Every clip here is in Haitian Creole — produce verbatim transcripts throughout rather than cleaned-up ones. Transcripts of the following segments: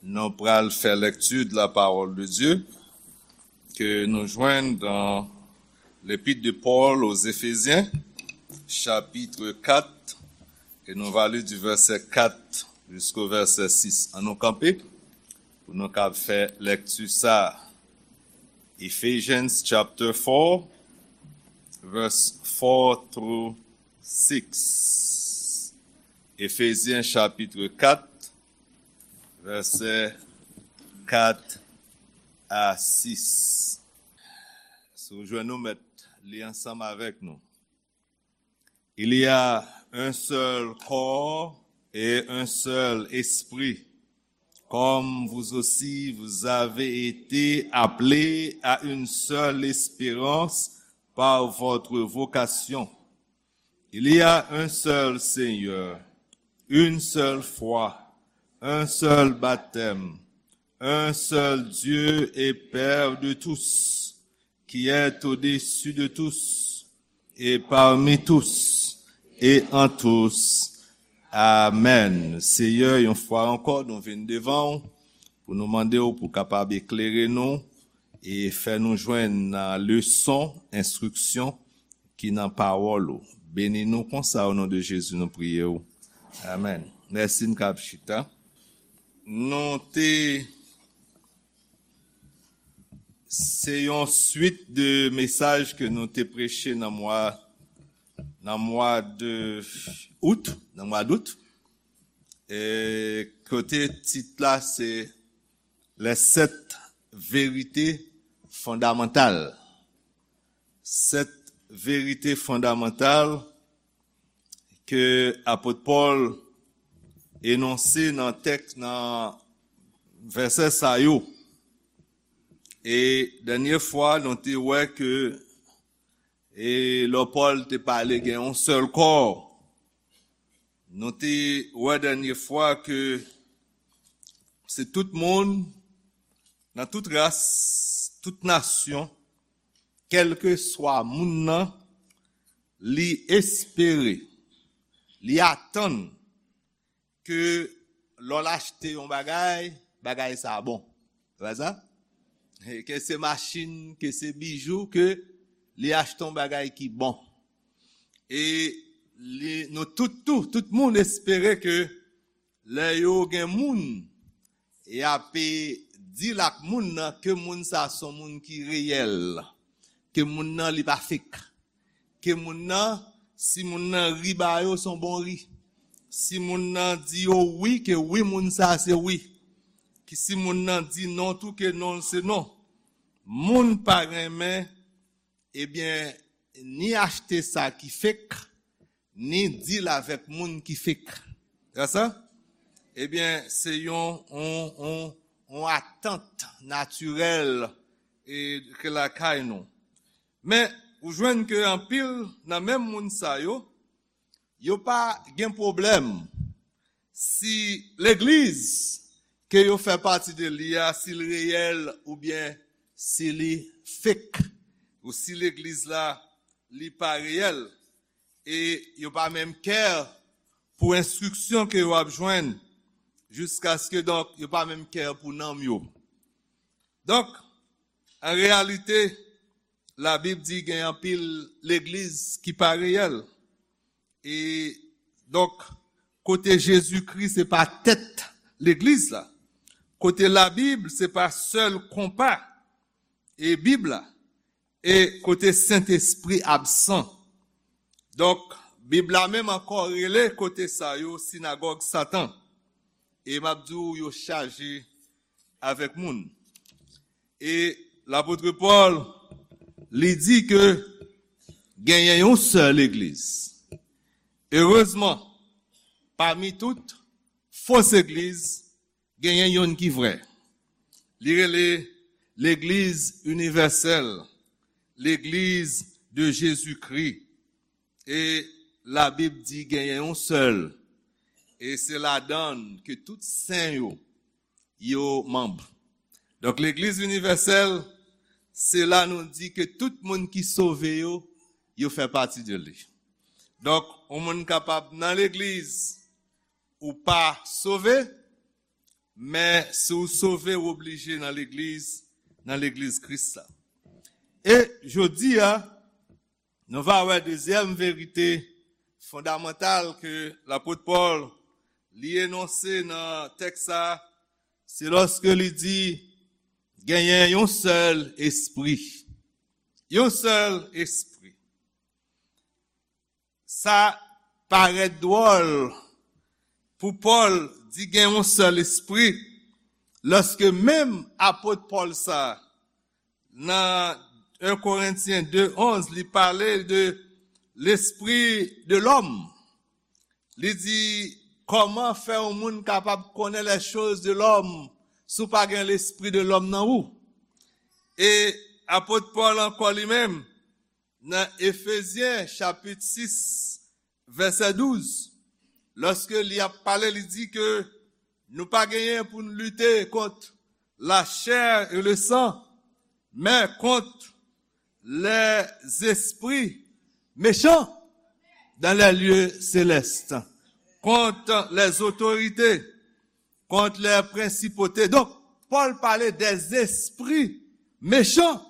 Nou pral fè lèkti de la parole de Dieu ke nou jwenn dans l'épître de Paul aux Éphésiens, chapitre quatre, e nou va li du verset quatre jusqu'au verset six. Ann nou kanpe pou nou kab fè lèkti sa. Ephesians chapter four, verse four through six. Éphésiens chapitre quatre, verset quatre à six. Si w jwenn, nou mèt li ansanm avèk nou. Il y a un seul corps et un seul esprit, comme vous aussi vous avez été appelés à une seule espérance par votre vocation. Il y a un seul Seigneur, une seule foi, un seul baptême, un seul Dieu et Père de tous, qui est au-dessus de tous, et parmi tous, et en tous. Amen. Senyè, yon fwa ankò, nou vin devan w pou nou mande w pou kapab eklere nou e fè nou jwenn nan leson, enstriksyon ki nan pawòl ou. Beni nou konsa, o non de Jezi, nou priye w. Amen. Mèsi, n kab chita. Nou te Se yon swit de mesaj ke nou te preche nan mwa, nan mwa de out, nan mwa dout. E kote tit la se les sept vérités fondamentales. Sèt verite fondamantal ke apot Pòl enonse nan tèks, nan vèsè sa yo. E dènye fwa, nou te wè ke, e lè Pòl te pale gen yon sèl kò, nou te wè dènye fwa ke se tout moun, nan tout ras, tout nasyon, kèlkeswa moun nan, li espere, li atann ke lè l achte yon bagay, bagay sa a bon. Se pa sa? E ke se machin, ke se bijou, ke li achte yon bagay ki bon. E li, nou tout tou, tout moun espere ke lè yo gen moun, y ape di l ak moun nan ke moun sa se yon moun ki reyèl, ke moun nan li pa fek, ke moun nan, si moun nan ri ba yo, se yon bon ri. Si moun nan di yo wi, ke wi moun sa se wi. Ki si moun nan di non tou, ke non se non. Moun pa renmen, ebyen, ni achte sa ki fek, ni deal avèk moun ki fek. Se sa? Ebyen, se yon, yon, yon, yon atant natirèl e ke lakay nou. Men, ou jwenn ke anpil nan menm moun sa yo, yo pa gen pwoblèm si legliz ke yo fè pati de li a, si l reyèl oubyen si li fek, ou si legliz la, li pa reyèl, e yo pa menm kè pou enstriksyon ke yo ap jwenn, jiskaske, donk, yo pa menm kè pou nanm yo. Donk, an reyalite, Labib di gen anpil legliz ki pa reyèl. E donk, kote Jezikri se pa tèt legliz la, kote Labib se pa sèl konpa e Bib la, e kote Sentespri absan. Donk, Bib la menm ankò rele kote sa yo sinagòg Satan. E m ap di w, yo chaje avèk moun. E lapot Pòl, li di ke genyen yon sèl legliz. Erezman, pami tout fo legliz, genyen youn ki vrè. Li rele legliz inivèsèl, legliz de Jezikri. E Labib di genyen yon sèl, e se ladan l ke tout sen yo, yo manm. Donk, legliz inivèsèl, se la nou di ke tout moun ki sove yo, yo fè pati de li. Donk, yon moun kapab nan legliz, ou pa sove, Men si w sove, w oblije nan legliz, nan legliz Kris la. E jodi a, nou va wè dezyèm verite fondamantal ke lapot Pòl li enonse nan tèks sa, se lòske li di genyen yon sèl espri. Yon sèl espri. Sa parèt dwòl pou Pòl di gen yon sèl espri, lòske menm apot Pòl sa, nan en Korentyen de onz, li pale de l'esprit de l'homme. Li di, kòman fè yon moun kapab konnen les choses de l'homme si w pa gen l'esprit de l'homme nan ou? E apot Pòl ankò li menm, nan Efezyen chapit sis, vèsè douz, lòske li ap pale, li di ke nou pa genyen pou n lite kont la chair et le sang, men kont les esprits méchants dans les lieux célestes, kont les autorités, kont les principautés. Donk, Pòl pale des esprits méchants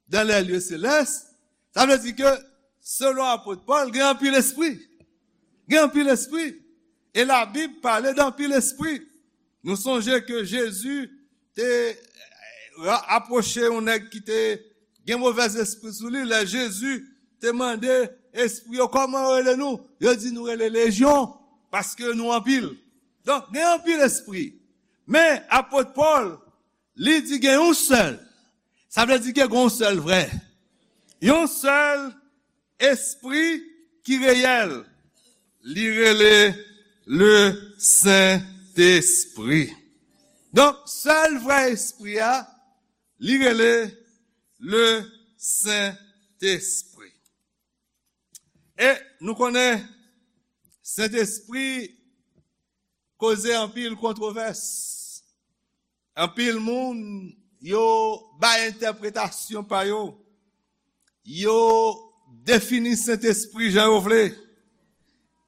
dans les lieux célestes, sa vle di ke, selon apot Pòl, gen anpil espri. Gen anpil espri. E Labib pale de anpil espri. Nou sonje ke Jezi te, eh, ra-, apwoche yon nèg ki te gen movèzespri sou li. Lè Jezi te mande espri yo, "Kòman yo rele nou?" Yo di, "Nou rele Lejyon, paske nou anpil." Donk, gen anpil espri. Men, apot Pòl, li di gen yon sèl. Sa vle di ke gen yon sèl vrè. Yon sèl espri ki reyèl. Li rele le Sentespri. Donk, sèl vrè espri a, li rele le Sentespri. E nou konnen Sentespri koze anpil kontwovès. Anpil moun, yo bay entèpretasyon pa yo. Yo defini Sentespri jan yo vle.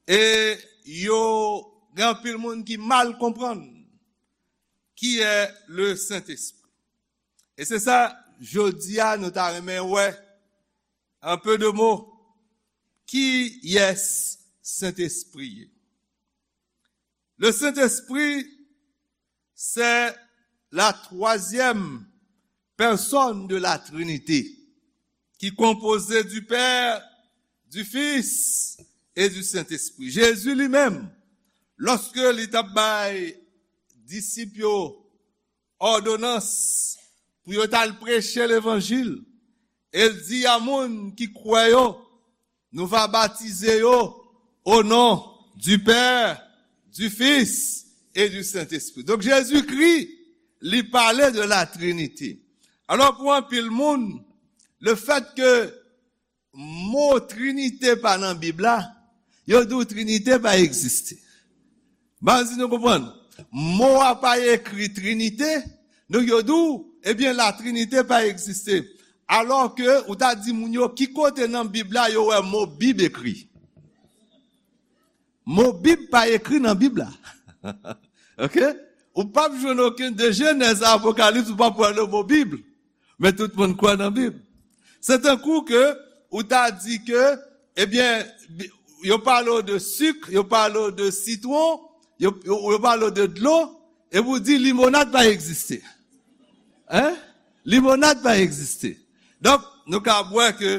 E yo gen anpil moun ki mal konprann ki è le Sentespri. E se sa, jodi a, nou ta renmen wè, en peu de mots, kiyès Sentespri ye. Le Saint-Esprit, c'est la troisième personne de la Trinité, qui est composée du Père, du Fils et du Saint-Esprit. Jezi li menm, lòske li t ap bay disip yo òdonans pou yo t al preche levanjil, e l di a moun ki kwè yo, nou va batize yo au nom du Père, du Fils et du Saint-Esprit. Donk, Jezikri, li pale de la Trinité. Alò, pou anpil moun, le fait que mo Trinite pa nan Bib la, yo di w Trinite pa egziste. M pa si nou konprann. Mo a pa ekri Trinite, donk yo di w, ebyen, la Trinite pa egziste. Alò ke ou ta di moun yo ki kote nan Bib la yo wè mo Bib ekri. Mo Bib pa ekri nan Bib la. Oke? Ou p ap jwenn okenn de Jenèz a Apokalips, ou p ap wè le mo Bib. Men tout moun kwè nan Bib. Se tankou ke ou ta di ke, ebyen, bi-, yo pale w de sik, yo pale w de sitwon, yo, yo, yo pale w de dlo, epi w di limonad pa egziste. Hein? Limonad pa egziste. Donk, nou ka wè ke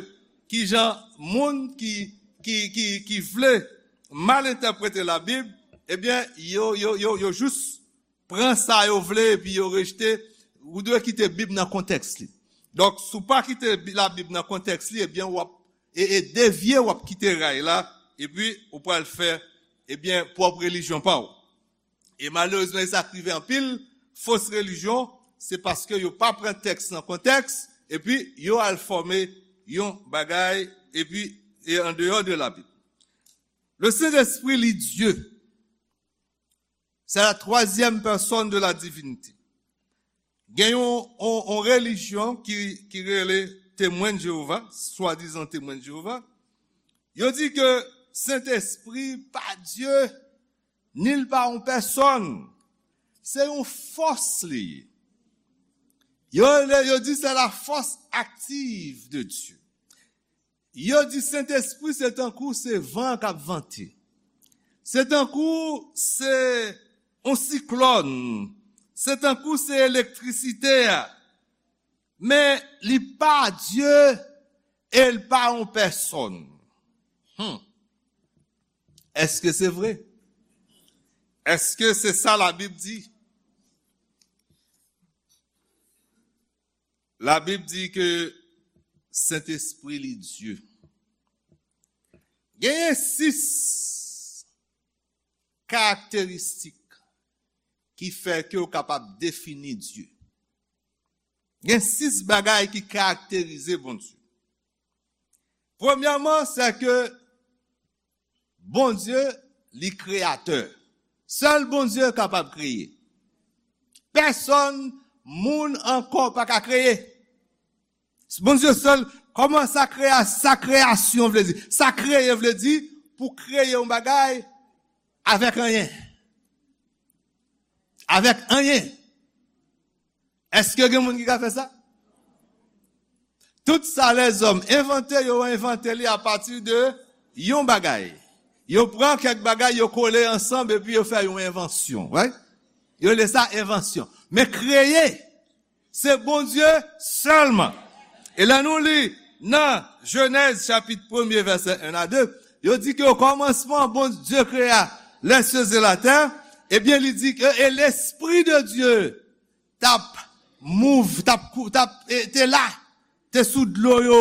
kijan moun ki, ki, ki, ki vle mal entèprete Labib, ebyen, yo, yo, yo, yo jis pran sa yo vle epi yo rejte. Ou dwe kite Bib nan kontèks li. Donk, si w pa kite Bi-, Labib nan kontèks li, ebyen, w ap, e, e devye, w ap kite ray la, epi ou pral fè, ebyen, pwòp relijyon pa w. E malerezman, e sa k rive anpil fos relijyon, se paske yo pa pran tèks nan kontèks, epi yo al fòme yon bagay, epi e an deyò de Labib. Le Saint-Esprit, li Dye. C'est la troisième personne de la divinité. Gen yon, yon, yon relijyon ki, ki rele Temwen de Jewova, swadizan Temwen de Jewova. Yo di ke Sentespri pa Dye, ni l pa yon pèsòn. Se yon fòs li ye. Yo, yo di se la force active de Dieu. Yo di Sentespri se tankou se van k ap vante. Se tankou se yon siklòn. Se tankou se elektrisite a. Men li pa Dye e li pa yon pèsòn. Hmm. Èske se vre? Èske se sa Labib di? Labib di ke Sentespri li Dye. Genyen sis karakteristik ki fè ke w kapab defini Dye. Gen sis bagay ki karakterize Bondye. Premyèman, se ke Bondye, li kreyatè. Sèl Bondye kapab kreye. Pèsòn, moun ankò pa ka kreye. Bondye sèl, kòman sa kreye, sa kreyasyon vle di? Sa kreye vle di pou kreye yon bagay avèk anyen. Avèk anyen. Èske gen moun ki ka fè sa? Tout sa lèzòm envante, yo envante li apati de yon bagay. Yo pran kèk bagay, yo kole ansanm, epi yo fè yon envansyon, right? Yo rele sa envansyon. Men kreye, se Bondye sèlman. E lè nou li nan Jenèz chapit premye, vèsè en a de, yo di ke o kòmansman, Bondye krea lè sye e latè, ebyen, li di ke, e Lespri de Dye t ap mouv, t ap kou-, t ap, e, te la, te sou dlo yo,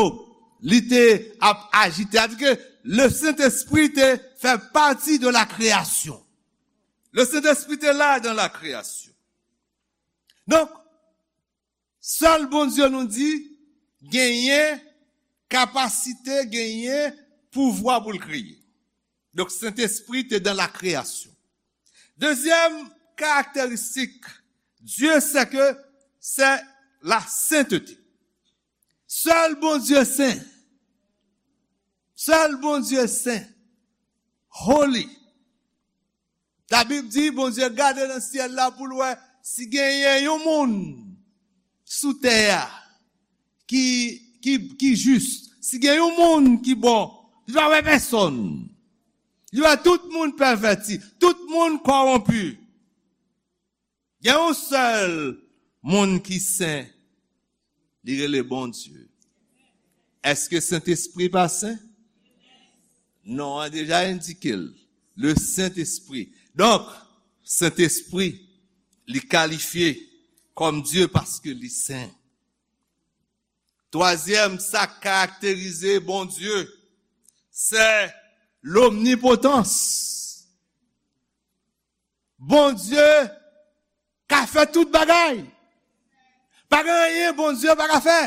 li te ap ajite. Sa vle di ke le Sentespri te fè pati de la kreyasyon. Le Sentespri te la dan la kreyasyon. Donk, sèl Bondye nou di genyen kapasite, genyen pouvwa pou l kreye. Donk, Sentespri te dan la kreyasyon. Dezyèm karakteristik Dye, se ke se la sentete. Sèl Bondye sen. Sèl Bondye sen. Holy. Labib di, Bondye gade nan syèl la pou l wè si genyen yon moun sou tè a ki, ki, ki jis, si gen yon moun ki bon, li pa wè pèsòn. Li wè tout moun pèvèti, tout moun kòwonpi. Gen yon sèl moun ki sen, li rele Bondye. Èske Sentespri pa sen? Non an deja endike l. Le Sentespri. Donk, Sentespri, li kalifye kòm Dye paske li sen. Twazyèm, sa k karakterize Bondye, se lomnipotans. Bondye ka fè tout bagay. Pa gen anyen Bondye pa ka fè.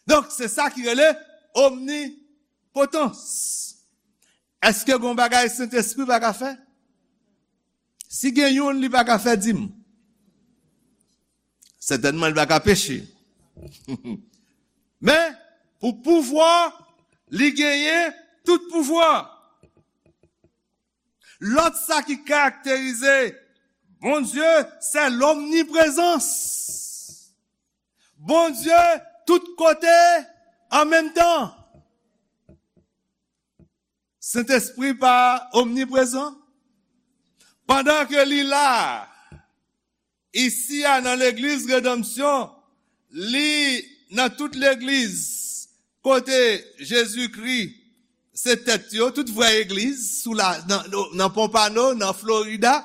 Donk, se sa ki rele omnipotans. Èske gon bagay Sentespri pa ka fè? Si gen youn li pa ka fè, di m. Sètènman, li pa ka peche. Men, pou pouvwa, li genyen tout pouvwa. Lòt sa ki karakterize Bondye, se lomniprezans. Bondye tout kote an menm tan. Sentespri pa omniprezan? Pandan ke li la, isi a nan legliz Redanmsyon, li nan tout legliz kote Jezikri se tèt yo, tout vrè egliz sou la, nan, nan Pompano, nan Florida,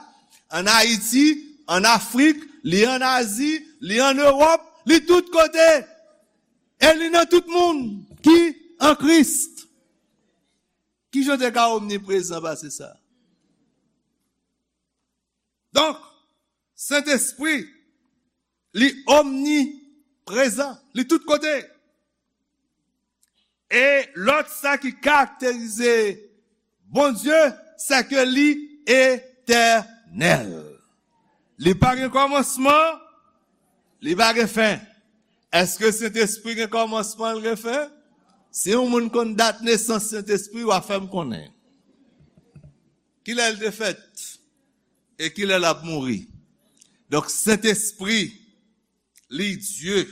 ann Ayiti, ann Afrik, li ann Azi, li ann Ewòp, li tout kote. E li nan tout moun ki an Kris. Kijan w te ka omniprezan pase sa? Donk, Sentespri, li omniprezan, li tout kote. E lòt sa ki karakterize Bondye, se ke li etènèl. Li pa gen kòmansman, li pa gen fen. Èske Sentespri gen kòmansman, l gen fen? Si yon moun konn dat nesans Sentespri, w a fè m konnen. Kilè l te fèt? E kilè l ap mouri? Donk, Sentespri, li Dye.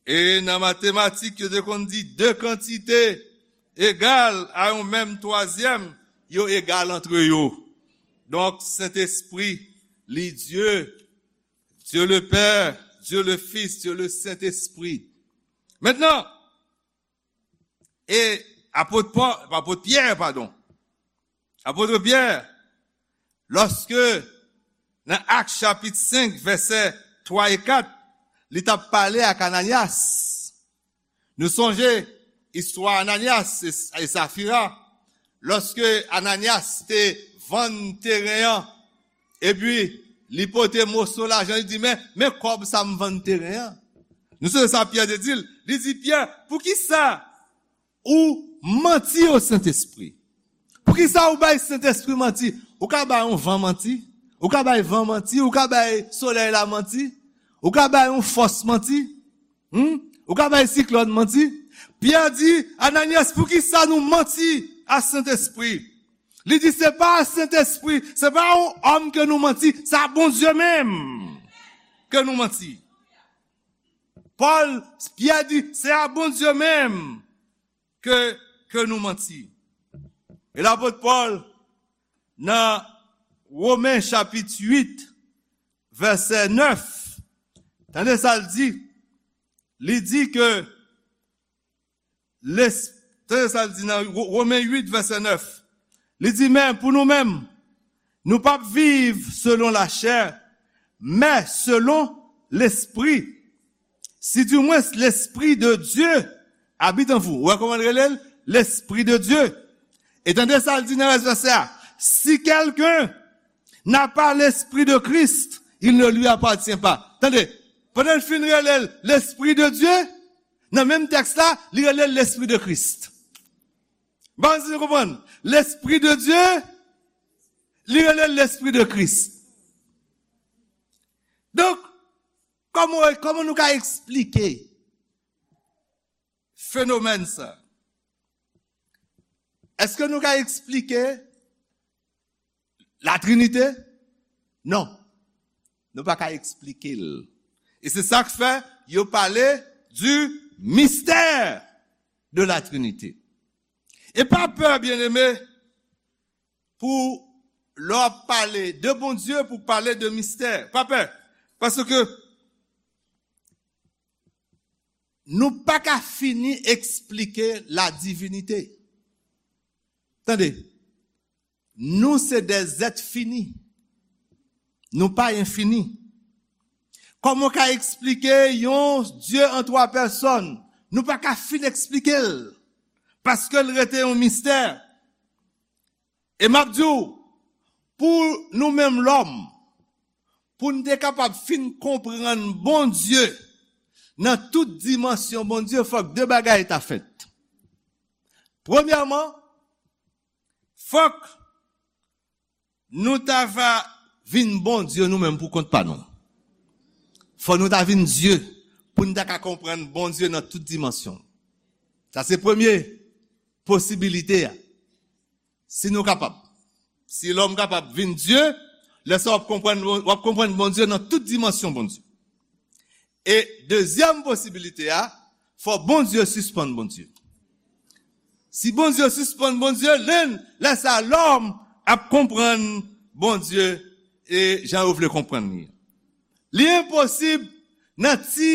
E nan matematik, yo te konn di de kantite egal a yon menm twazyèm, yo egal antre yo. Donk, Sentespri, li Dye, Dieu le Père, Dieu le Fils, Dieu le Saint-Esprit. Mentnan, e apot Pò-, apot Pyè, padon, apot Pyè, lòske nan Ak chapit senk, vèsè twa e kat, li t ap pale ak Ananyas. Nou sonje istwa Ananyas e, e Safira. Lòske Ananyas te vann teren an, epi li pote moso lajan, li di, "Men, men kòb sa m vann teren an." Nou sonje sa Pyè te di l? Li di, "Pyè, poukisa ou manti o Sentespri? Poukisa ou bay Sentespri manti? Ou ka bay yon van manti, ou ka bay van manti, ou ka bay solèy la manti, ou ka bay yon fòs manti, hmm? Ou ka bay siklòn manti." Pyè di, "Ananyas, poukisa nou manti a Sentespri?" Li di, "Se pa a Sentespri, se pa a yon òm ke nou manti, se a Bondye menm ke nou manti." Pòl, Pyè di, "Se a Bondye menm ke, ke nou manti." E lapot Pòl, nan Women chapit uit, vèsè nèf, tande sa l di. Li di ke, les-, tande sa l di nan Wo-, Women uit, vèsè nèf. Li di, "Men pou nou menm, nou p ap viv selon lachè, men selon Lespri. Si du moins l'Esprit de Dieu habite en vous." Ou wè kòman l rele l? L'Esprit de Dieu. E tande sa l di nan rès vèsè a, "Si quelqu'un n'a pas l'Esprit de Christ, il ne lui appartient pas." Tande, pandan l fin rele l Lespri de Dye, nan menm tèks la, li rele l Lespri de Kris. Bon, si nou konprann, Lespri de Dye, li rele l Lespri de Kris. Donk, kòman, kòman nou ka eksplike fenomèn sa? Èske nou ka eksplike Latrinite? Non. Nou pa ka eksplike l. E se sa k fè yo pale du mystère de la Trinité. E pa pè, byeneme, pou lè w ap pale de Bondye, pou pale de mistè. Pa pè. Paske nou pa ka fini eksplike la divinite. Tande, nou se de zèt fini. Nou pa enfini. Kòman w ka eksplike yon Dye an twa pèsòn? Nou pa ka fin eksplike l. Paske l rete yon mistè. E m ap di w, pou nou menm lòm, pou n te kapab fin konprann Bondye nan tout dimansyon Bondye, fòk de bagay ta fèt. Premyèman, fòk nou ta va vin Bondye nou menm pou kont pa nou. Fò nou ta vin Dye pou n ta ka konprann Bondye nan tout dimansyon. Sa se premye posibilite a. Si nou kapab, si lòm kapab vin Dye, lè sa w ap konprann, w ap konprann Bondye nan tout dimansyon Bondye. E dezyèm posibilite a, fò Bondye sispann Bondye. Si Bondye sispann Bondye, lè, lè sa lòm ap konprann Bondye e jan yo vle konprann li. Li enposib nan ti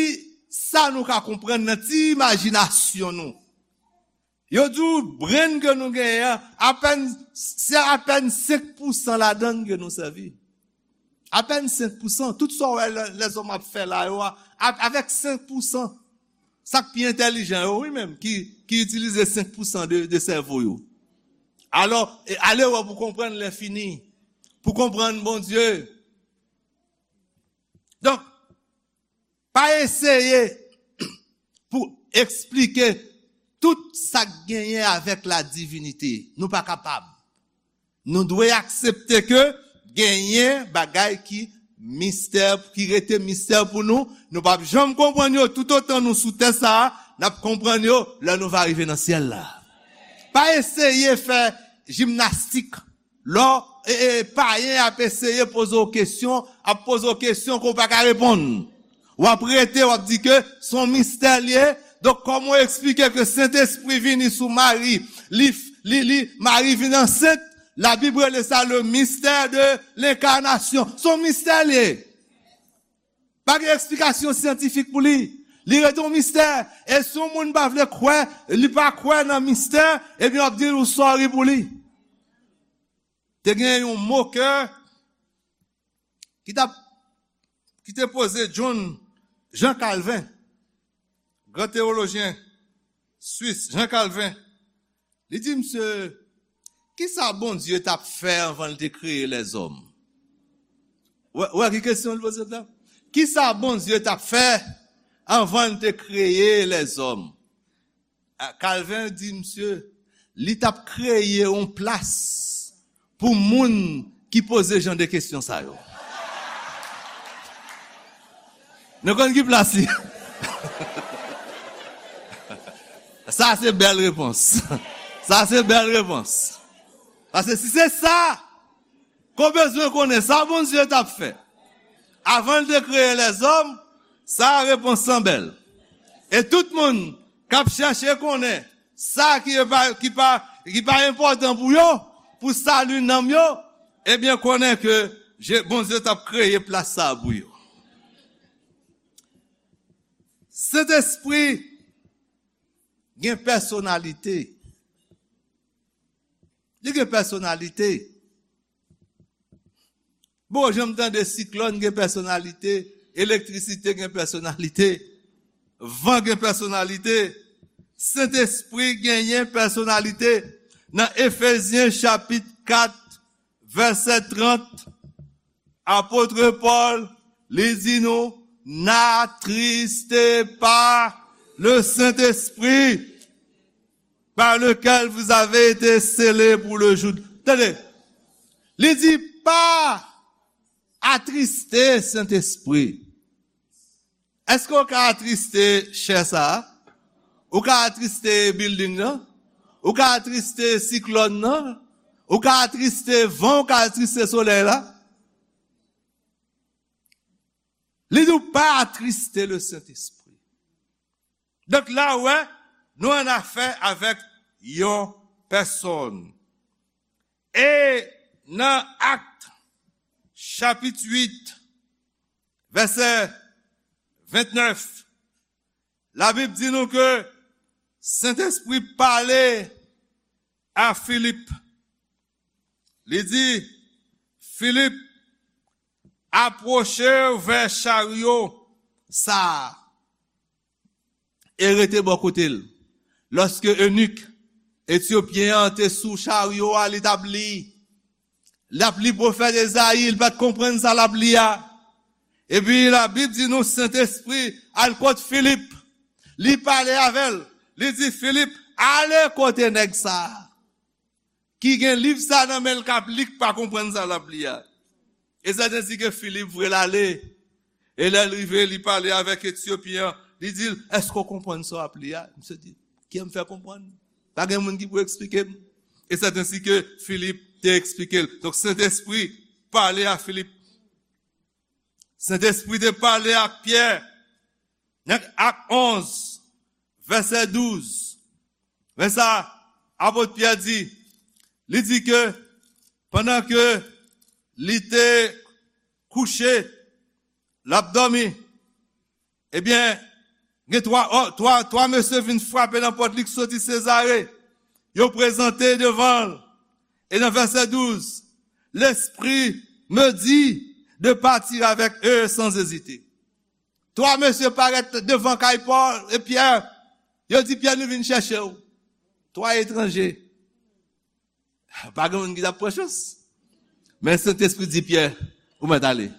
sa nou ka konprann, nan ti imajinasyon nou. Yo di w brenn ke nou genyen an, apèn, se apèn senk pousan ladan l ke nou sèvi. Apèn senk pousan. Tout sa w wè lè, lèzòm ap fè la yo a, a, avèk senk pousan. Sa k pi entèlijan yo, wi menm, ki, ki itilize senk pousan de, de sèvo yo. Alò, e, ale wè pou konprann lenfini, pou konprann Bondye. Donk, pa eseye pou eksplike tout sa k genyen avèk la divinite. Nou pa kapab. Nou dwe aksepte ke genyen bagay ki mistè, ki rete mistè pou nou. Nou p ap janm konprann yo toutotan nou sou tè sa a, n ap konprann yo lè nou va rive nan syèl la. Pa eseye fè jimnastik lè w e, e, payen ap eseye poze w kesyon, ap poze w kesyon ke w pa ka reponn. W ap rete, w ap di ke se yon mistè l ye. Donk, kòman w eksplike ke Sentespri vini sou Mari, li, li, li, Mari vin ansent? Labib rele sa le mystère de l'incarnation. Se yon mistè l ye. Pa gen eksplikasyon syantifik pou li. Li rete yon mistè. E si yon moun pa vle kwè, li pa kwè nan mistè, ebyen, w ap di l ou sòri pou li. Te gen yon mokè ki t ap, ki te poze John, Jean Calvin, gran teyolojyen swis, Jean Calvin. Li di misye, kisa Bondye t ap fè anvan l te kreye lèzòm? Ou wè, ou wè ki kesyon l poze la? Kisa Bondye t ap fè anvan l te kreye lèzòm? A, Calvin di misye, li t ap kreye yon plas pou moun ki poze jan de kesyon sa yo. Nou konn ki plas li? Sa se bèl repons. Sa se bèl repons. Paske si se sa, ke w bezwen konnen sa Bondye t ap fè anvan l te kreye lèzòm, sa repons lan bèl. E tout moun k ap chèche konnen sa ki pa, ki pa, ki pa enpòtan pou yo, pou sali nanm yo, ebyen, konnen ke Je-, Bondye t ap kreye plas sa a pou yo. Sentespri gen pèsonalite. Li gen pèsonalite. Bon, janm tande siklòn gen pèsonalite, elektrisite gen pèsonalite, van gen pèsonalite, Sentespri genyen pèsonalite. Nan Efezyen chapit kat, vèsè trant, apot Pòl, li di nou, n'attristez pas le Saint-Esprit, par lequel vous avez été scellés pour le jour. Tande, li di, pa atriste Sentespri. Èske w ka atriste chè sa a? Ou ka atriste bilding nan? Ou ka atriste siklòn nan? Ou ka atriste van? Ou ka atriste solèy la? Li di w pa atriste le Sentespri. Donk la, w wè, nou an afè avèk yon pèsòn. E nan Akt, chapit uit, vèsè ventnèf, Labib di nou ke Sentespri pale a Filip. Li di, Filip, apwoche w vè charyo sa a e rete bò kote l. Lòske enik etyopyen an te sou charyo a, li t ap li. L ap li pwofèt Ezayi, li pa t konprann sa l ap li a. Epi Labib di nou, Sentespri al kot Filip. Li pale avè l. Li di, Filip, ale kote nèg sa a ki gen liv sa nan men l k ap li, k pa konprann sa l ap li a. E sèten si ke Filip voye l ale. E lè l rive, li pale avèk Etyopyen an. Li di l, èske w konprann sa w ap li a? Misye di, kiyè m fè konprann? Pa gen moun ki pou eksplike m. E sèten si ke Filip te eksplike l. Donk, Sentespri pale a Filip. Sentespri te pale ak Pyè. Nan Ak onz, vèsè douz. Men sa apot Pyè di, li di ke pandan ke li te kouche, l ap dòmi, ebyen, gen twa, twa, twa mesye vin frape nan pòt li k soti Sezare. Yo prezante devan l. E nan vèsè douz, L'Esprit me dit de partir avec eux sans hésiter. Twa mesye parèt devan kay Pòl e Pyè. Yo di Pyè, nou vin chèche w. Twa etranje. Pa gen moun ki t ap pran chans. Men Sentespri di Pyè, ou mèt ale.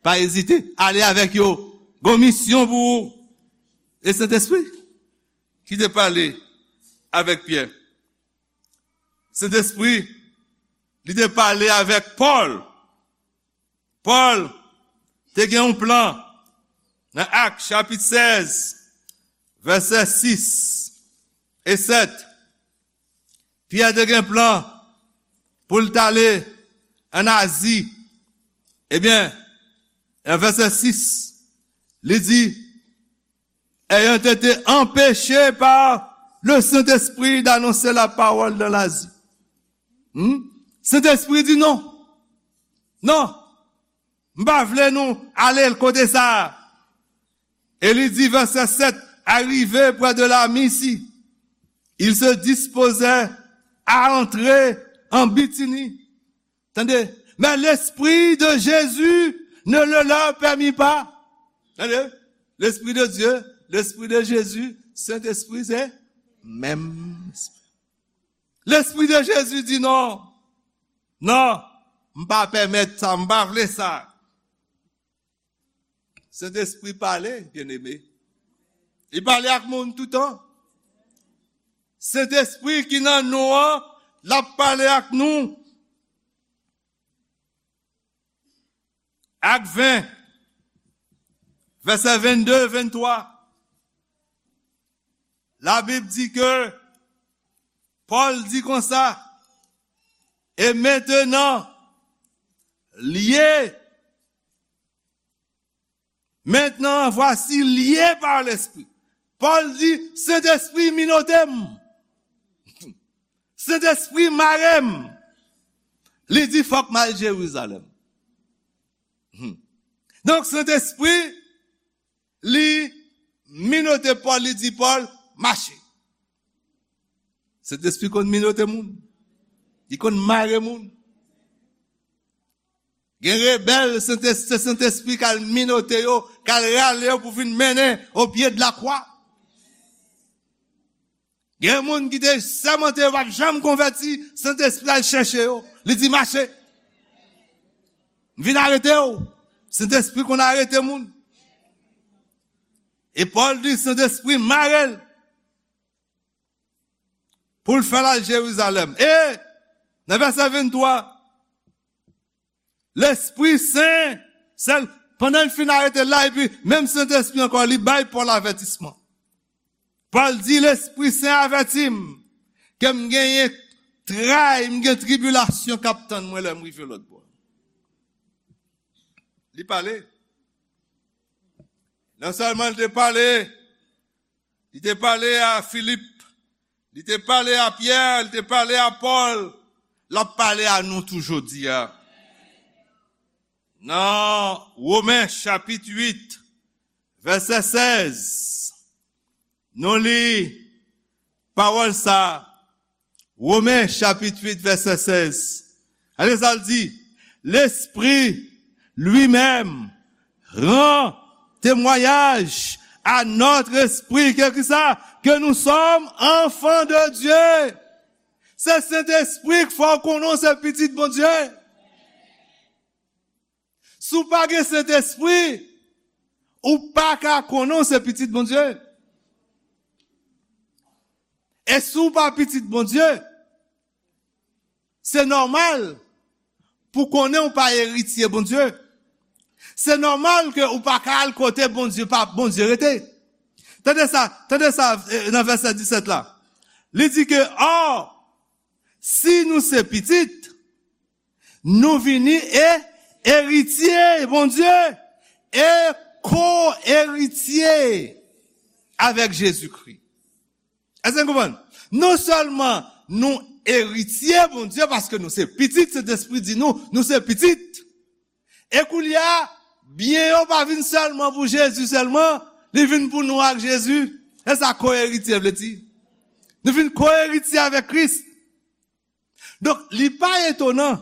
Pa ezite. Ale avèk yo. Gon misyon pou ou. E Sentespri ki te pale avèk Pyè. Sentespri, li te pale avèk Pòl. Pòl te gen yon plan nan Ak, chapit sèz, vèsè sis e sèt. Pyè te gen plan pou l t ale an Azi. Ebyen, nan vèsè sis, li di, ayant été empêchés par le Saint-Esprit d'annoncer la parole dans l'Asie. Hmm? Sentespri di non. Non. M pa vle nou ale kote sa a. E li di, vèsè sèt, arrivés près de la Mysie, ils se disposaient à entrer en Bithynie. Tande, mais l'Esprit de Jésus ne le leur permit pas. Tande, l'Esprit de Dieu, l'Esprit de Jésus, Sentespri se menm Espri. Lespri de Jezi di non. Non, m pa pèmèt sa, m pa vle sa. Sentespri pale, byeneme. Li pale ak moun toutan. Sentespri ki nan nou an, l ap pale ak nou. Ak ven, vèsè vennde, venntwa. Labib di ke Pòl di konsa, et maintenant, liés, maintenant, voici, liés par l'Esprit. Pòl di, Sentespri minote m. Sentespri mare m. Li di, fòk m al Jerizalèm. Hmm. Donk, Sentespri, li minote Pòl, li di Pòl, mache. Sentespri konn minote moun. Li konn mare moun. Gen rebèl, Sentespri, Sentespri k al minote yo, k al rale yo pou vin mennen o pye de la kwa. Gen moun ki te sèmante yo p ap janm konvèti, Sentespri al chèche yo. Li di, mache. M vin arete w. Sentespri konn arete moun. E Pòl di, Sentespri mare l pou l fè l al Jerizalèm. E nan vèsè venntwa, Lespri Sen, sèl, pandan l fin arete l la, epi menm Sentespri ankò, li bay Pòl avètisman. Pòl di, Lespri Sen avèti m ke m genyen tray, m gen tribilasyon k ap tann mwen lè m rive lòt bò. Li pale. Non sèlman li te pale, li te pale a Filip, li te pale a Pyè, li te pale a Pòl, l ap pale a nou tou jodi a. Nan Women chapit uit, vèsè sèz, nou li pawòl sa a. Women chapit uit, vèsè sèz. Gade sa l di, L'Esprit lui-même rend témoignage à notre esprit que, ki sa? Que nous sommes enfants de Dieu. Se Sentespri k fè w konnen w se pitit Bondye. Si w pa gen Sentespri, ou pa ka konnen w se pitit Bondye. E si w pa pitit Bondye, se nòmal pou konnen w pa eritye Bondye. Se nòmal ke ou pa ka al kote Bondye pa, Bondye rete. Tande sa, tande sa, eh, nan vèsè disèt la. Li di ke, or, si nou se pitit, nou vini e eritye Bondye e ko-eritye avèk Jezikri. Èske n konprann? Non sèlman nou eritye Bondye paske nou se pitit, Sentespri di nou, nou se pitit. E koulye a, byen yo pa vin sèlman pou Jezi sèlman, li vin pou nou ak Jezi. E sa ko-eritye vle di. Nou vin ko-eritye avèk Kris. Donk, li pa etonan,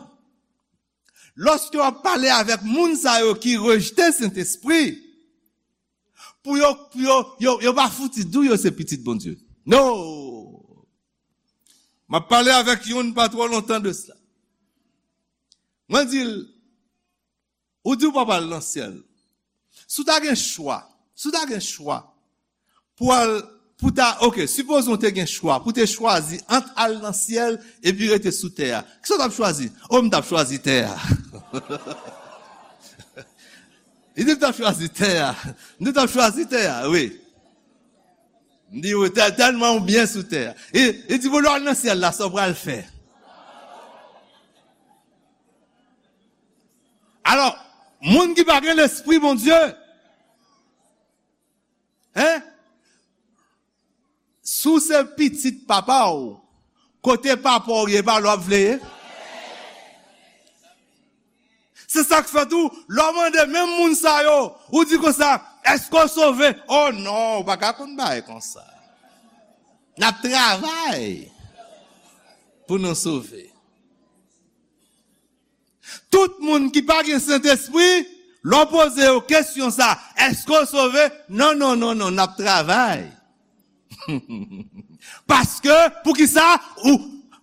lòske w ap pale avèk moun sa yo ki rejte Sentespri, pou yo, pou yo, yo, yo pa fouti di w yo se pitit Bondye. No! M ap pale avèk youn pa twò lontan de sa. Mwen di l, ou di w p ap al nan syèl. Si w ta gen chwa, si w ta gen chwa pou al, pou ta, oke, sipoze w te gen chwa, pou te chwazi ant al nan syèl epi rete sou tè a, kisa w t ap chwazi? O, m t ap chwazi tè a. Li di, m t ap chwazi tè a. M di, m t ap chwazi tè a, wi. M di, wi, tèl-, tèlman w byen sou tè a. E, li di, bon, lè w al nan syèl la, sa w pral fè? Alò, moun ki pa gen Lespri Bondye, en? Si w se pitit papa w, kote papa w ye, pa la w ap vle ye? Se sa k fè tou, lè w mande menm moun sa yo, ou di konsa, èske w sove? Oh non, ou pa ka konn bagay konsa. N ap travay pou nou sove. Tout moun ki pa gen Sentespri, lè w poze yo kesyon sa, èske w sove? Non, non, non, non, n ap travay. Paske, poukisa? Ou,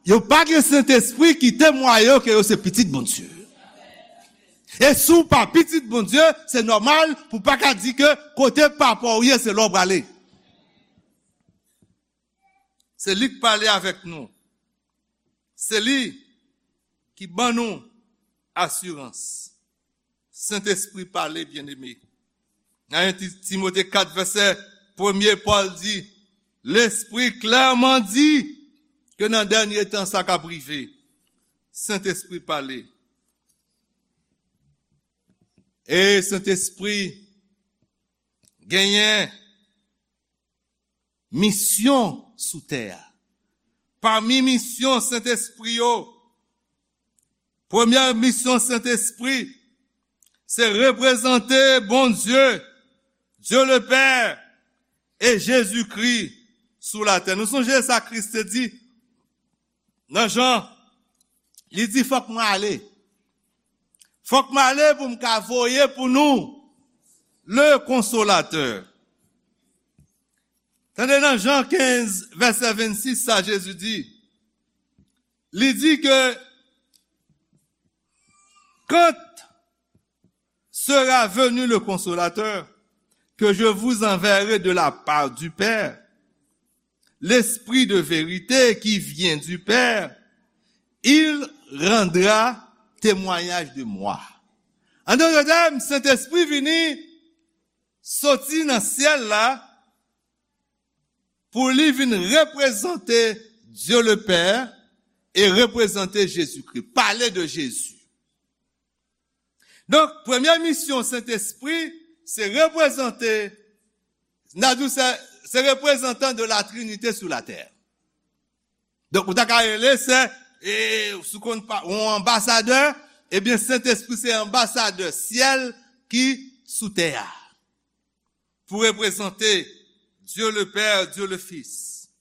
yo pa gen Sentespri ki temwaye yo ke yo se pitit Bondye. E si w pa pitit Bondye, se nòmal pou w pa ka di ke kote papa w ye, se la w prale. Se li k pale avèk nou. Se li ki ban nou asirans. Sentespri pale, byeneme. Nan en Ti-, Timote kat, vèsè premye, Pòl di, Lespri klèman di ke nan dènye tan sa k ap rive. Sentespri pale. E Sentespri genyen misyon sou tè a. Pami misyon Sentespri yo, premyè misyon Sentespri, se reprezante Bondye, Dieu le Père, e Jezikri sou latè. Nou sonje sa Kris te di nan Jan, li di, fòk mwen ale. Fòk mwen ale pou m ka voye pou nou le Konsolatè. Tande nan Jan kenz, vèsè vennsis, sa Jezi di. Li di ke, quand sera venu le Consolateur, que je vous enverrai de la part du Père, l'Esprit de vérité qui vient du Père, il rendra témoignage de moi. An dòt tèm, Sentespri vini soti nan syèl la pou li vin reprezante Dieu le Père e reprezante Jezikri, pale de Jezi. Donk, premye misyon Sentespri, se reprezante, n a di w se, se reprezantan de la Trinité sou latè. Donk, ou ta ka rele se, e, si w konn pa, yon anbasadè, ebyen, Sentespri se anbasadè syèl ki sou tè a. Pou reprezante Dieu le Père, Dieu le Fils.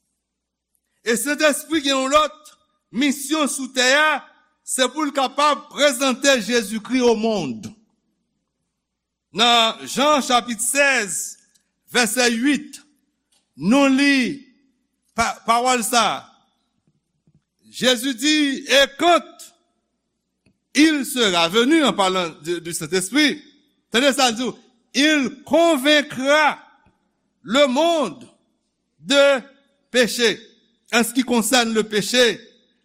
E Sentespri gen yon lòt misyon sou tè a, se pou l kapab prezante Jezikri o mond. Nan Jan chapit sèz, vèsè uit, nou li pa-, pawòl sa. Jezi di, et quand il sera venu, en parlant de, du Saint-Esprit, tande sa l di w, il convaincra le monde de péché, en ce qui concerne le péché,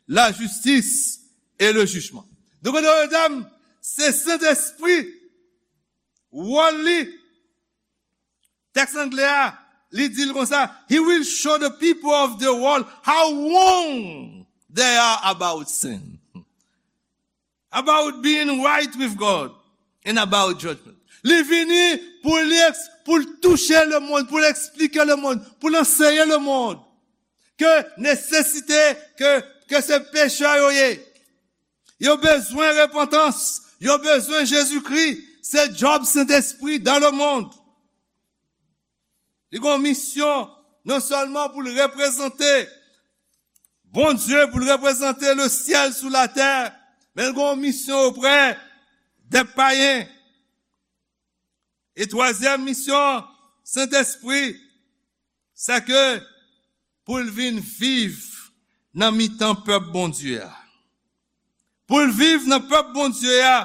la justice et le jugement. Donk, mesye dam, se Sentespri, wòl li, tèks anglè a, li di l konsa, he will show the people of the world how wrong they are about sin, about being right with God, and about judgment. Li vini pou li eks-, pou l touche lemonn, pou l eksplike lemonn, pou l anseye lemonn ke nesesite, ke, ke se pechè yo ye. Yo bezwen repantans, yo bezwen Jezikri. Se djòb Sentespri dans le monde. Li gen yon misyon non sèlman pou l reprezante Bondye, pou l reprezante le syèl sou latè, men l gen yon misyon oprè dè payen. E twazyèm misyon Sentespri, se ke pou l vin viv nan mitan pèp Bondye a. Pou l viv nan pèp Bondye a,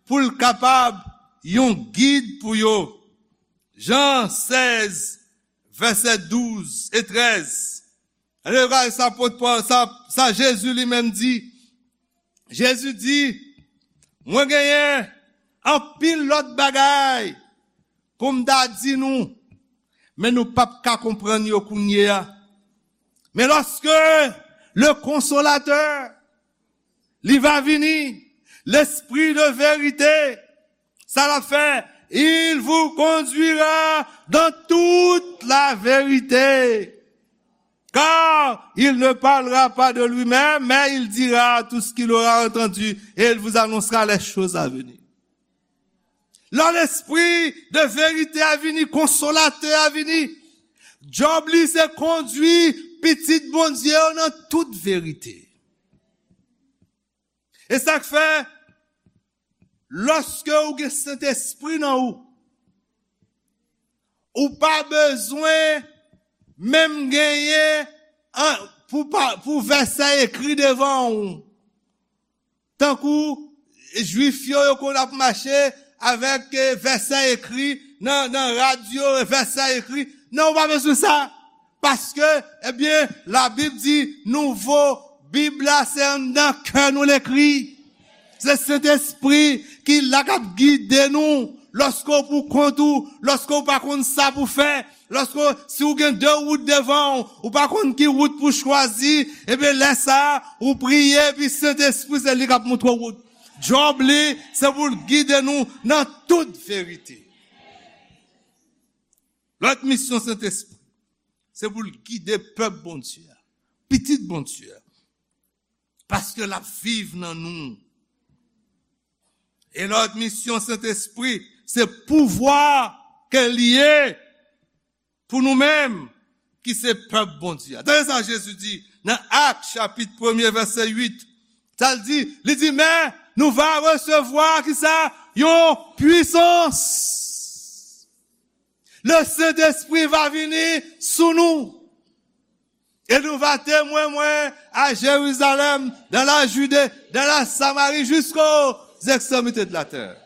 pou l kapab yon gid pou yo. Jan sèz, vèsè douz e trèz. Ann gade sa apot Pòl, sa, sa Jezi li menm di. Jezi di, mwen genyen anpil lòt bagay pou m ta di nou, men nou p ap ka konprann yo kounye a. Men lòske le Konsolatè, li va vini, Lespri de verite, Sa l ap fè, il vous conduira dans toute la vérité. Car il ne parlera pas de lui-même, mais il dira tout ce qu'il aura entendu et il vous annoncera les choses à venir. Lè Lespri de verite a vini, Konsolatè a vini, djòb li se kondui pitit Bondye yo nan tout verite. E sa k fè, lòske ou gen Sentespri nan ou, ou pa bezwen menm genyen an, pou, pa, pou vèsè ekri devan ou. Tankou Jwif yo, yo konn ap mache avèk, eh, vèsè ekri nan, nan rad yo, vèsè ekri. Non, ou pa bezwen sa. Paske, ebyen, Labib di, nouvo Bib la, se anndan kè nou l ekri. Se Sentespri ki la k ap gide nou. Lòske w pou kont ou, lòske w pa konn sa pou fè, lòske w, si w gen de wout devan w, ou pa konn ki wout pou chwazi, ebyen, lè sa a, ou priye, epi Sentespri, se li k ap montre w wout. Djòb li, se pou l gide nou nan tout verite. Lòt misyon Sentespri, se pou l gide pèp Bondye a, pitit Bondye a. Paske l ap viv nan nou. E lòt misyon Sentespri, se pouvwa ke l ye pou nou menm, ki se pèp Bondye a. Tande sa Jezi di nan Ak, chapit premye, vèsè uit. Sa l di, li di, men nou va resevwa, ki sa? Yon pwisans. Le Sentespri va vini sou nou. E nou va temwen mwen a Jerizalèm, dans la Judée, dans la Samarie, jusqu'aux extrémités de la terre.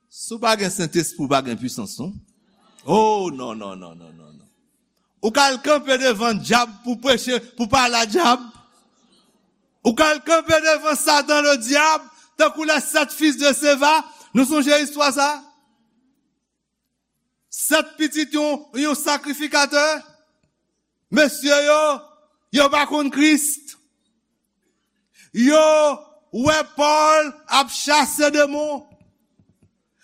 Si w pa gen Sentespri, w pa gen pwisans, non? Oh, non, non, non, non, non, non. Ou ka al kanpe devan dyab pou preche, pou pale a dyab. Ou ka al kanpe devan Satan, le diable, tankou les sept fils de Sceva. Nou sonje istwa sa? Sèt pitit yon, yon sakrifikatè. Mesye yo, yo pa konn Kris. Yo wè Pòl ap chase demon.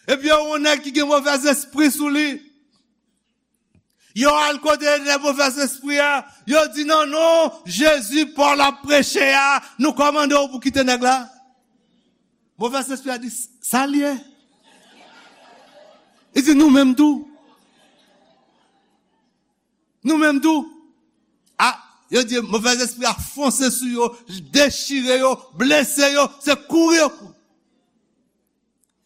Epi yo wè yon nèg ki gen movèzespri sou li. Yo al kote nèg movèzespri a. Yo di, nan non Jezi Pòl ap preche a, nou kòmande w pou kite nèg la. Movèzespri a di, sa l ye? Li di, nou menm tou. Nou menm tou. A, yo di, movèzespri a fonse sou yo, dechire yo, blese yo, se kouri yo kouri.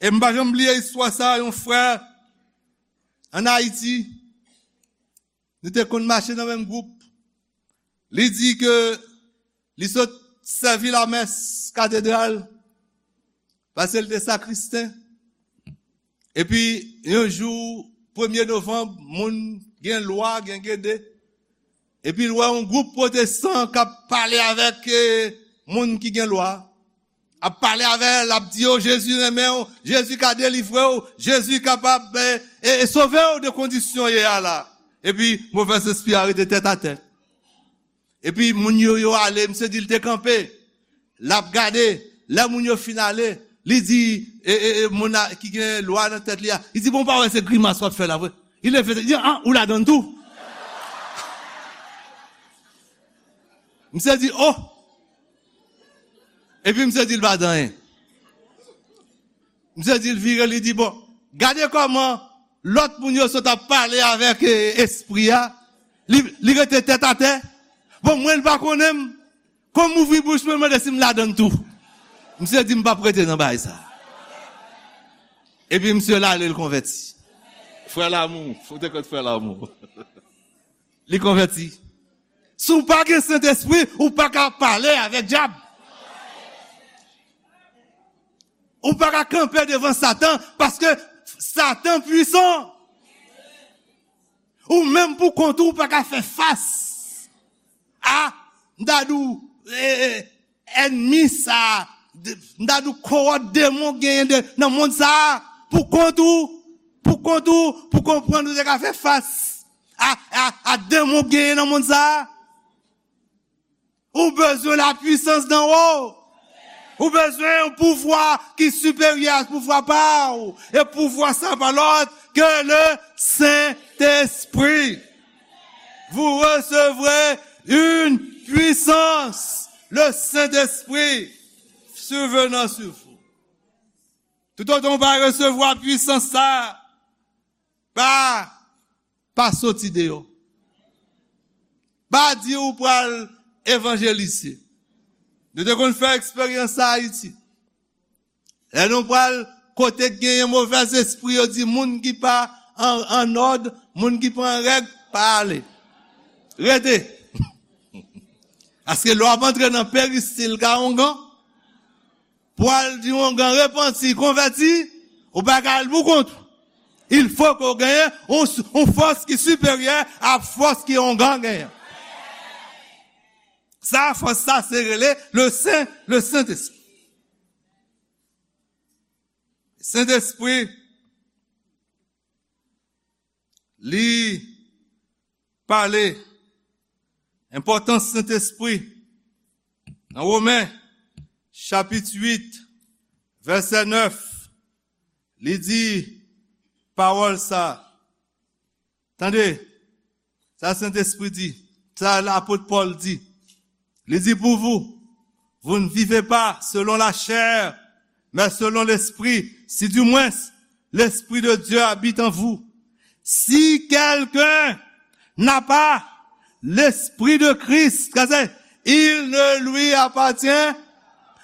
E m pa janm bliye istwa sa, yon frè ann Ayiti, nou te konn mache nan menm gwoup. Li di ke li sot sèvi lamès katedral, paske li te sakristen. Epi, yon jou, premye novanm, moun gen lwa, gen gede. Epi, l wè yon gwoup pwotestan k ap pale avèk, eh, moun ki gen lwa. Ap pale avè l, ap di yo, Jezi renmen w, Jezi ka delivre w, Jezi kapab, eh, eh, sove w de kondisyon w ye a la. Epi, movèzespri a rete tèt atè. Epi moun yo, yo ale, misye di l te kanpe. L ap gade, lè moun yo fin ale, li di, e, e, e, moun la ki gen lwa nan tèt li a, li di, bon, w pa wè se grimas w ap fè la vre? Li leve tèt, li di, an, ou ladann tou? Misye di, oh! Epi misye di l pa di anyen. Misye di l vire, li di, bon, gade kòman lòt moun yo sot ap pale avèk, eh, espri a. Li, li rete tèt atè. Bon, mwen, l pa konnen m. Kòm m ouvri bouch mwen, mande si m ladann tou. Misye di, m p ap rete nan bagay sa. Epi misye l ale, l konvèti. Frè Lamou, fout ekòt Frè Lamou. Li konvèti. Si w pa gen Sentespri, ou pa ka pale avèk dyab. Ou pa ka kanpe devan Satan, paske Satan pwisan. Ou menm pou kont ou, ou pa ka fè fas a, m ta di w, e, e, ènmi sa, de, m ta di w kowòt demon genyen de, nan mond sa a, pou kont ou, pou kont ou, pou konprann ou te ka fè fas a, a, a demon genyen nan mond sa a. Ou bezwen lapwisans d'en haut. Ou bezwen yon pouvwa ki siperyè a pouvwa pa w. E pouvwa sa pa lòt ke le Sentespri. Vous recevrez une puissance, le Saint-Esprit survenant sur vous. Toutotan w pa resevwa pwisans sa a, pa, pa soti deyò. Pa di ou pral evanjelize. Nou te konn fè eksperyans sa Ayiti. Lè nou pral kote k genyen movèzespri, yo di moun ki pa an, an òd, moun ki pa an règ, pa ale. Rete. Paske lè w ap antre nan peristil ka ongan, pou al di ongan repanti, konvèti, ou pa ka al pou kont ou. Il faut que w genyen yon, yon fòs ki siperyè a fòs ki ongan genyen. Sa, fòs sa, se rele le Sen, le Sentespri. Sentespri, li pale enpòtans Sentespri. Nan Women, chapit uit, vèsè nèf, li di pawòl sa. Tande, sa Sentespri di, sa lapot Pòl di. Li di, pour vous, vous ne vivez pas selon la chair, mais selon l'Esprit, si du moins l'Esprit de Dieu habite en vous. Si quelqu'un n'a pas l'Esprit de Christ, kase, il ne lui appartient.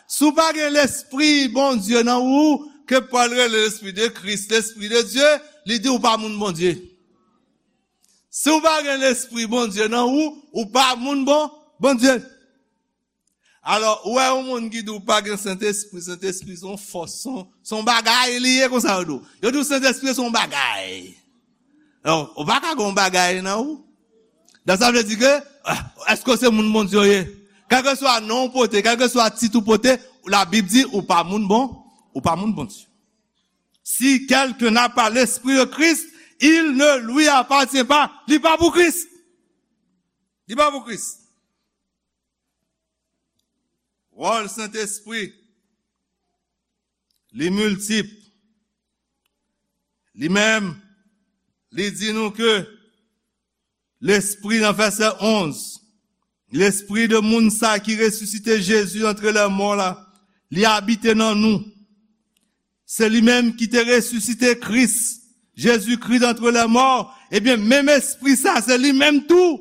Si w pa gen Lespri Bondye nan ou, ke Pòl rele Lespri de Kris, Lespri de Dye, li di ou pa moun Bondye. Si w pa gen Lespri Bondye nan ou, ou pa moun bon, Bondye. Alò, ou wè yon moun ki di w pa gen Sentespri, Sentespri se yon fòs, se yon, se yon bagay li ye konsa yo di w. Yo di w Sentespri se yon bagay. Alò, ou pa ka gen yon bagay nan ou. Donk sa vle di ke, ah, èske w se moun Bondye w ye? Kèlkeswa non w pote, kèlkeswa tit ou pote, Labib di ou pa moun bon, ou pa moun Bondye. Si quelqu'un n'a pas l'esprit de Christ, il ne lui appartient pas. Li pa pou Kris. Li pa pou Kris. Wòl Sentespri, li miltip. Li menm, li di nou ke Lespri nan vèsè onz, Lespri de moun sa ki resisite Jezi antre lè mò la, li abite nan nou. Se li menm ki te resisite Kris, Jezikri antre lè mò. Ebyen, menm Espri sa, se li menm tou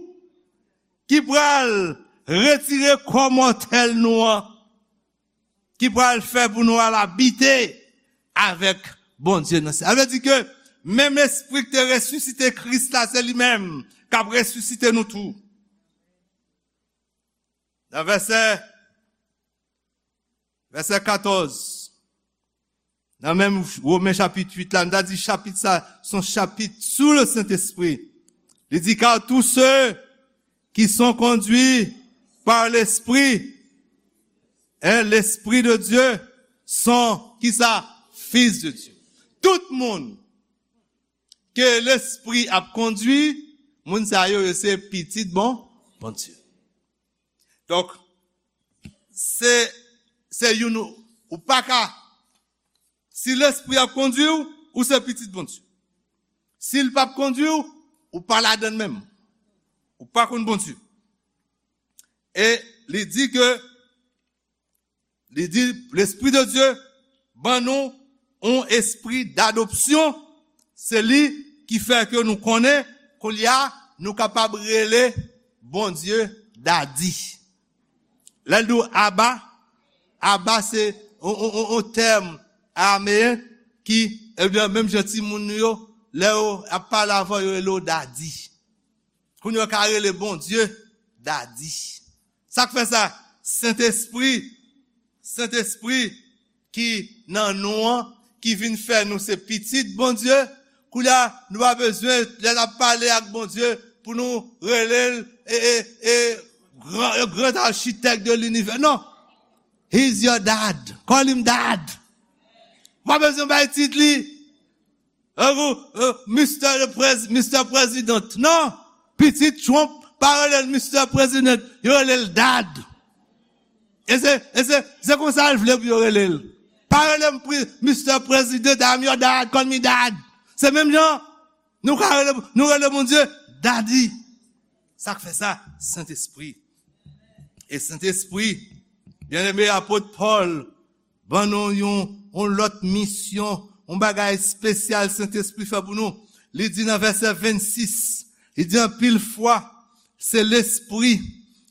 ki pral retire kò mòtèl nou an, ki pral fè pou nou al abite avèk Bondye nan syèl. Sa vle di ke menm Espri ki te resisite Kris la, se li menm k ap resisite nou tou. Nan vèsè, vèsè katòz, nan menm Women chapit uit la, nou ta di chapit sa, se yon chapit sou le Sentespri. Li di, car tous ceux qui sont conduits par l'Esprit, hein, l'Esprit de Dieu, sont, ki sa? Fils de Dieu. Tout moun ke Lespri ap kondui, moun sa yo, yo se pitit bon, Bondye. Donk, se, se youn ou, ou pa ka, si Lespri ap kondui w, ou se pitit Bondye. Si l p ap kondui w, ou pa ladann menm. Ou pa konn Bondye. E li di ke, li di, Lespri de Dye ban nou yon espri dadopsyon. Se li ki fè ke nou konnen, kounye a, nou kapab rele Bondye Dadi. Lè l di w Aba, Aba se yon, yon, yon, yon tèm arameyen ki, ebyen, menm jan timoun nou yo, lè yo ap pale avè w, yo rele w Dadi. Kounye a, yo ka rele Bondye Dadi. Sa k fè sa? Sentespri, Sentespri ki nan nou an, ki vin fè nou se pitit Bondye. Kounye a, nou pa bezwen, lè n ap pale ak Bondye, pou nou rele l, e, e, e, gran, gran architect de l'univers. Non. He's your dad. Call him dad. Ou pa bezwen bay tit li. Tankou, euh, Mister le Prez-, Mister President. Non. Pitit Trump pa rele l Mister President. Yo rele l Dad. E se, e se, se konsa l vle pou yo rele l. Pa rele m pri, Mister President, I'm your dad, call me dad. Se menm jan, nou ka rele, nou rele Bondye Daddy. Sa k fè sa? Sentespri. E Sentespri, byeneme, apot Pòl ban nou yon, yon lòt misyon, yon bagay espesyal Sentespri fè pou nou. Li di nan vèsè vennsis, li di anpil fwa, se Lespri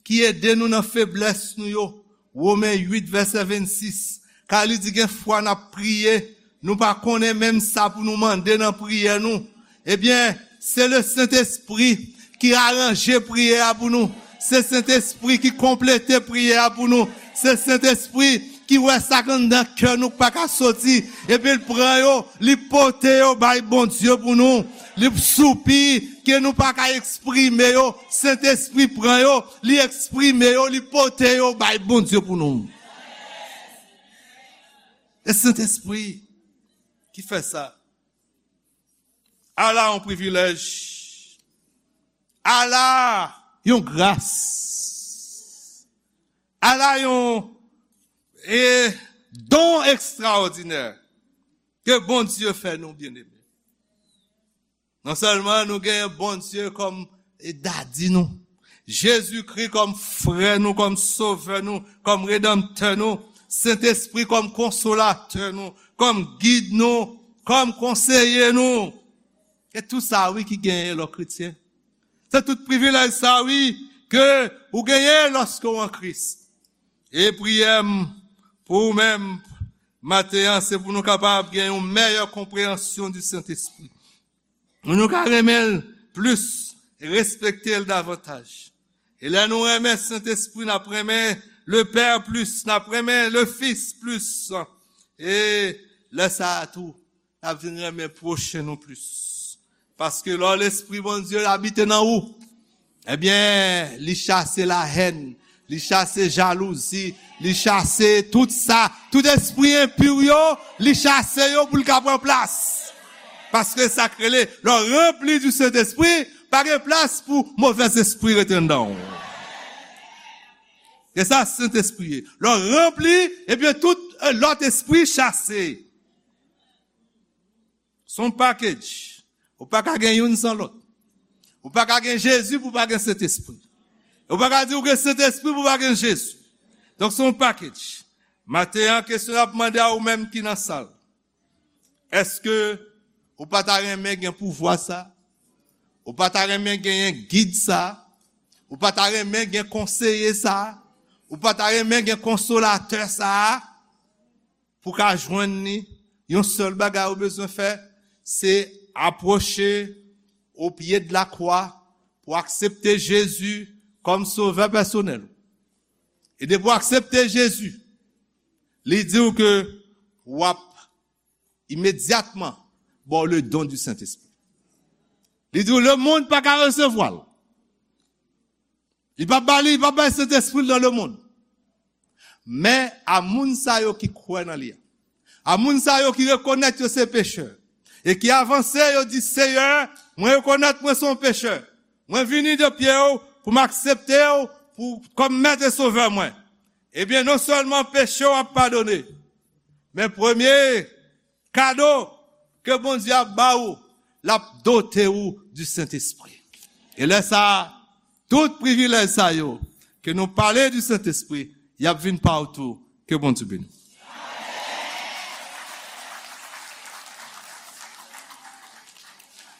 ki ede nou nan feblès nou yo. Women uit, vèsè vennsis. Ka li di gen fwa n ap priye, nou pa konnen menm sa pou nou mande nan priyè nou. Ebyen, se le Sentespri ki aranje priyè a pou nou. Se Sentespri ki konplete priyè a pou nou. Se Sentespri ki wè sa k anndan kè nou k pa ka soti. Epi l pran yo, li pote yo bay Bondye pou nou. Li soupi ke nou pa ka eksprime yo. Sentespri pran yo, li eksprime yo, li pote yo bay Bondye pou nou. E Sentespri ki fè sa. Ala yon privilèj. Ala yon gras. Ala yon, e, don ekstraòdinè ke Bondye fè nou, byeneme. Non sèlman nou genyen Bondye kòm, e, dadi nou, Jezikri kòm frè nou, kòm sovè nou, kòm redanmtè nou, Sentespri kòm konsolatè nou, kòm gid nou, kòm konseye nou. E tou sa, wi, ki genyen lè w kretyen. Se tout privilèj sa, wi, ke ou genyen lòske w an Kris. E priyè m pou ou menm maten an, se pou nou kapab gen yon mèyè konpreyansyon di Sentespri. Pou nou ka renmen l plis, respekte l davantaj. E lè nou renmen Sentespri, n ap renmen le Pè plis, n ap renmen le Fis plis. E lè sa a tou, n ap vin renmen pwochen nou plis. Paske lè Lespri Bondye abite nan ou, ebyen, li chase lahèn, li chase jalouzi, li chase tout sa, tout espri enpi yo, li chase yo pou l ka pran plas. Paske sa k rele, lè w ranpli di Sentespri, pa gen plas pou movèzespri rete anndan w. E sa Sentespri ye. Lè w ranpli, ebyen tout, e, lòt espri chase. Se yon package. Ou pa ka gen youn san lòt. Ou pa ka gen Jezi pou pa gen Sentespri. Ou pa ka di ou gen Sentespri pou pa gen Jezi. Donk, se yon package. Maten an, kesyon n ap mande a ou menm ki nan sal. Èske ou pa ta renmen gen pouvwa sa? Ou pa ta renmen genyen gid sa? Ou pa ta renmen gen konseye sa? Ou pa ta renmen gen konsolatè sa? Pou ka jwenn li, yon sèl bagay ou bezwen fè, se apwoche o pye de la kwa pou aksepte Jezi kòm sovè pèsonèl. E depi w aksepte Jezi, li di w ke w ap imedyatman ba w le don du Sentespri. Li di w lemonn pa ka resevwa l. Li p ap ba li, li p ap bay Sentespri l nan lemonn. Men a moun sa yo ki kwè nan li a, a moun sa yo ki rekonèt yo se pechè, e ki avanse, yo di, Seyè, mwen rekonèt mwen se yon pechè. Mwen vini de pye w pou m aksepte w pou, kòm Mèt e Sovè mwen. Ebyen, non sèlman peche w ap padone, men premye kado ke Bondye ap ba ou, l ap dote ou di Sentespri. E lè sa a, tout privilèj sa yo ke nou pale di Sentespri, y ap vin pa w tou. Ke Bondye beni w.